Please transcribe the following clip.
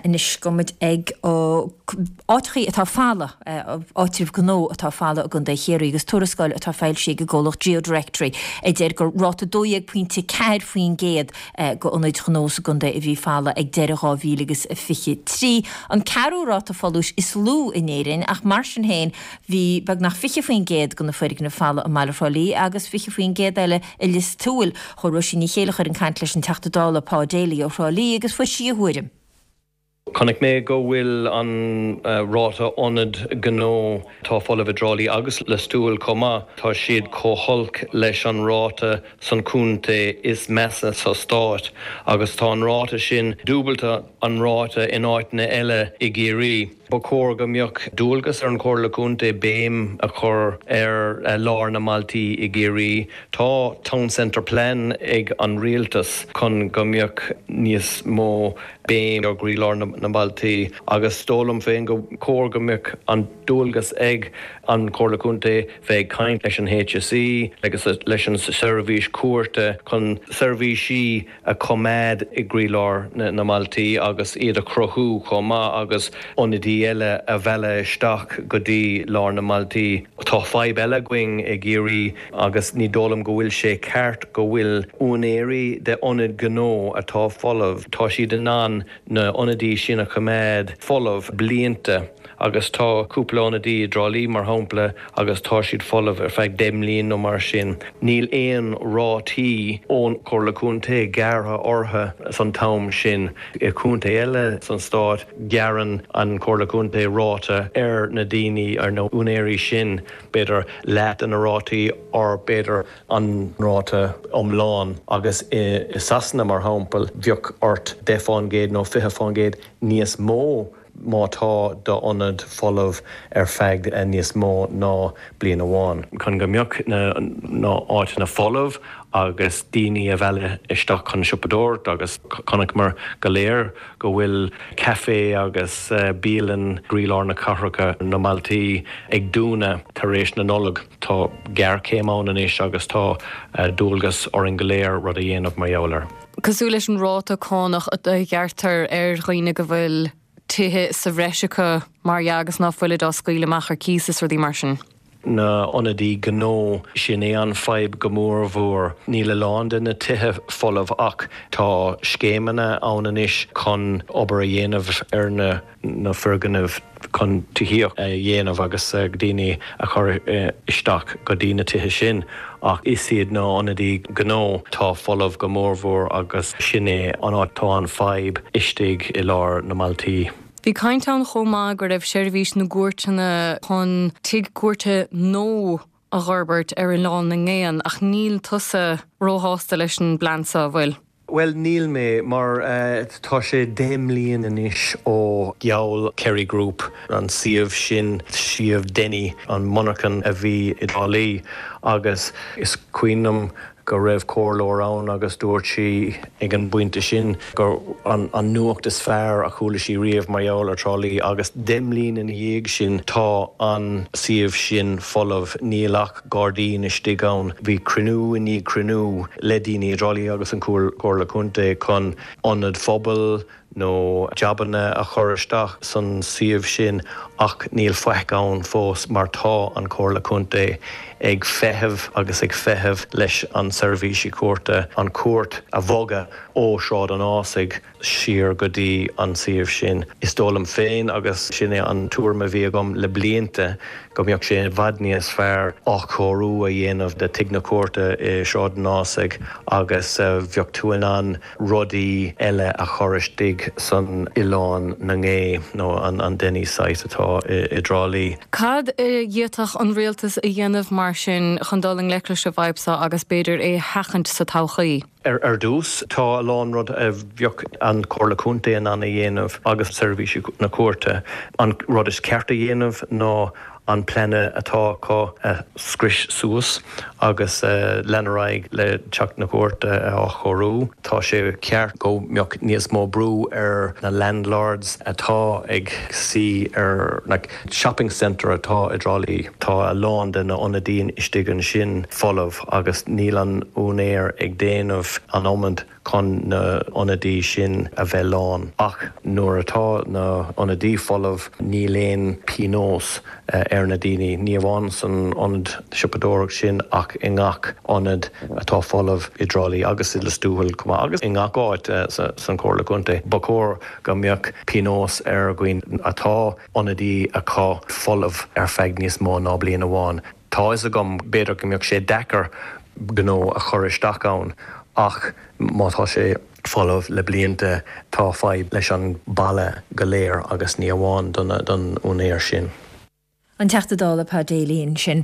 Anois gabhfaidh muid ag áiteachaí atá folamh, áitribh gnó atá folamh i gContae Chiarraí agus tuarascáil atá foilsithe ag an gcomhlacht GeoDirectory a deir gur ráta 12.4% de ionaid ghnó sa gcontae a bhí folamh ag deireadh 2023, an ceathrú ráta folúis is lú in Éirinn ach mar sin féin bhí beagnach 20% de na foirgnimh folamh i mbaile Thrá Lí agus 20% eile i Lios Tuathail. Chuaigh Róisín Ní Chéilleachair chun caint leis an Teachta Dála Pa Daly ó Thrá Lí agus fuair sí a thuairim. Chonaic mé go bhfuil an ráta ionad gnó atá folamh i dTrá Lí agus Lios Tuathail chomh maith, tá siad chomh holc leis an ráta san contae is measa sa stát agus tá an ráta sin dúbalta an ráta in áiteanna eile i gCiarraí. Ba chóir go mbeadh dualgas ar an Chomhairle Contae béim a chur ar lár na mbailtí i gCiarraí. Tá Town Centre Plan ag an Rialtas chun go mbeadh níos mó béim ar gcroílár na mbailtí agus is dóigh liom féin go chóir go mbeadh an dualgas ag an Chomhairle Contae bheith ag caint leis an HSE agus leis an seirbhís cúirte chun seirbhísí a choimeád i gcroílár na mbailtí agus iad a chruthú chomh maith agus ionadaí eile a mhealladh isteach go dtí lár na mbailtí. Tá fadhb eile againn i gCiarraí agus ní dóigh liom go bhfuil sé ceart go bhfuil úinéirí de ionaid gnó atá folamh, tá siad in ann na ionadaí sin a choimeád folamh blianta agus tá cúpla ionadaí i dTrá Lí mar shampla agus tá siad folamh ar feadh 10 mbliain nó mar sin. Níl aon rátaí ón Chomhairle Contae gearrtha orthu san t-am sin. I gcontae eile san stát gearrann an Chomhairle Contae ráta ar na daoine, ar na úinéirí sin, b'fhéidir leath de na rátaí or b'fhéidir an ráta iomlán agus i Sasana mar shampla bheadh ort 10% nó 20% níos mó má tá d'ionad folamh ar feadh níos mó ná bliain amháin. Chun go mbeadh na áiteanna folamh agus daoine a mhealladh isteach chun siopadóireacht agus chonaiceamar go léir go bhfuil caife agus bialann i gcroílár na cathracha, na mbailtí ag dúnadh tar éis na Nollag. Tá géarchéim ann anois agus tá dualgas orainn go léir rud a dhéanamh mar gheall air. Cosúil leis an ráta cánach a ghearrtar ar dhaoine go bhfuil tithe sa bhreis acu, mar dhea, agus ná fuilid á scaoileadh amach ar cíos is rudaí mar sin. na ionadaí gnó, sin é an fadhb go mór mhór. Níl a lán de na tithe folamh ach tá scéimeanna ann anois chun obair a dhéanamh ar na na foirgnimh chun tithíocht a dhéanamh agus daoine a chur isteach go dtí na tithe sin ach is iad na ionadaí gnó atá folamh go mór mhór agus sin é an áit tá an fadhb istigh i lár na mbailtí. Bhí caint ann chomh maith go raibh seirbhís na gcúirteanna chun tigh cúirte nua a dh'fhorbairt ar Oileán na nGéanna ach níl tusa róshásta leis an bplean seo, an bhfuil? Bhuel, níl mé, mar tá sé 10 mbliain anois ó gheall Kerry Group an suíomh sin, suíomh Denny, an monarchan a bhí i dTrá Lí, agus is cuimhin liom go raibh comhairleoir ann agus dúirt sí ag an bpointe sin gur an nuacht is fearr a chuala sí riamh mar gheall ar Trá Lí agus 10 mbliain ina dhiaidh sin tá an suíomh sin folamh, níl ach gairdín istigh ann. Bhí cruinniú i ndiaidh cruinniú le daoine i dTrá Lí agus an Chomhairle Contae chun ionad phobail, nó jabanna a chur isteach san suíomh sin ach níl faic ann fós mar tá an Chomhairle Contae ag feitheamh agus ag feitheamh leis an seirbhísí cúirte an chúirt a bhogadh ó Shráid an Ásaigh siar go dtí an suíomh sin. Is dóigh liom féin agus sin é an tuairim a bhí agam le blianta go mbeadh sé i bhfad níos fearr athchóiriú a dhéanamh de Tigh na Cúirte i Sráid an Ásaigh agus bheadh tú in ann rudaí eile a chur istigh san Oileán na nGé nó an Denny site atá i dTrá Lí. Cad a d'fhéadfadh an rialtas a dhéanamh mar sin chun dul i ngleic leis an bhfadhb seo agus b'fhéidir é a sheachaint sa todhchaí? Ar dtús, tá a lán rud a bheadh an Chomhairle Contae in ann a dhéanamh agus seirbhísí na cúirte. An rud is ceart a dhéanamh ná. an plean atá acu a scrios suas agus lean ar aghaidh le teach na cúirte a athchóiriú. Tá sé ceart go mbeadh níos mó brú ar na landlords atá ag suí ar na shopping centre atá i dTrá Lí. Tá a lán de na ionadaí istigh ansin folamh agus níl an úinéir ag déanamh an iomad chun na ionadaí sin a bheith lán. Ach nuair atá na ionadaí folamh níl aon pionós ar na daoine, ní amháin san ionad siopadóireacht sin ach i ngach ionad atá folamh i dTrá Lí agus i Lios Tuathail chomh maith agus i ngach áit san Chomhairle Contae. Ba chóir go mbeadh pionós ar dhaoine atá ionadaí acu folamh ar feadh níos mó ná bliain amháin. Tá fhios agam, b'fhéidir go mbeadh sé deacair gnó a chur isteach ann ach má tá sé folamh le blianta tá fadhb leis an baile go léir agus ní amháin don úinéir sin. An Teachta Dála Pa Daly ansin.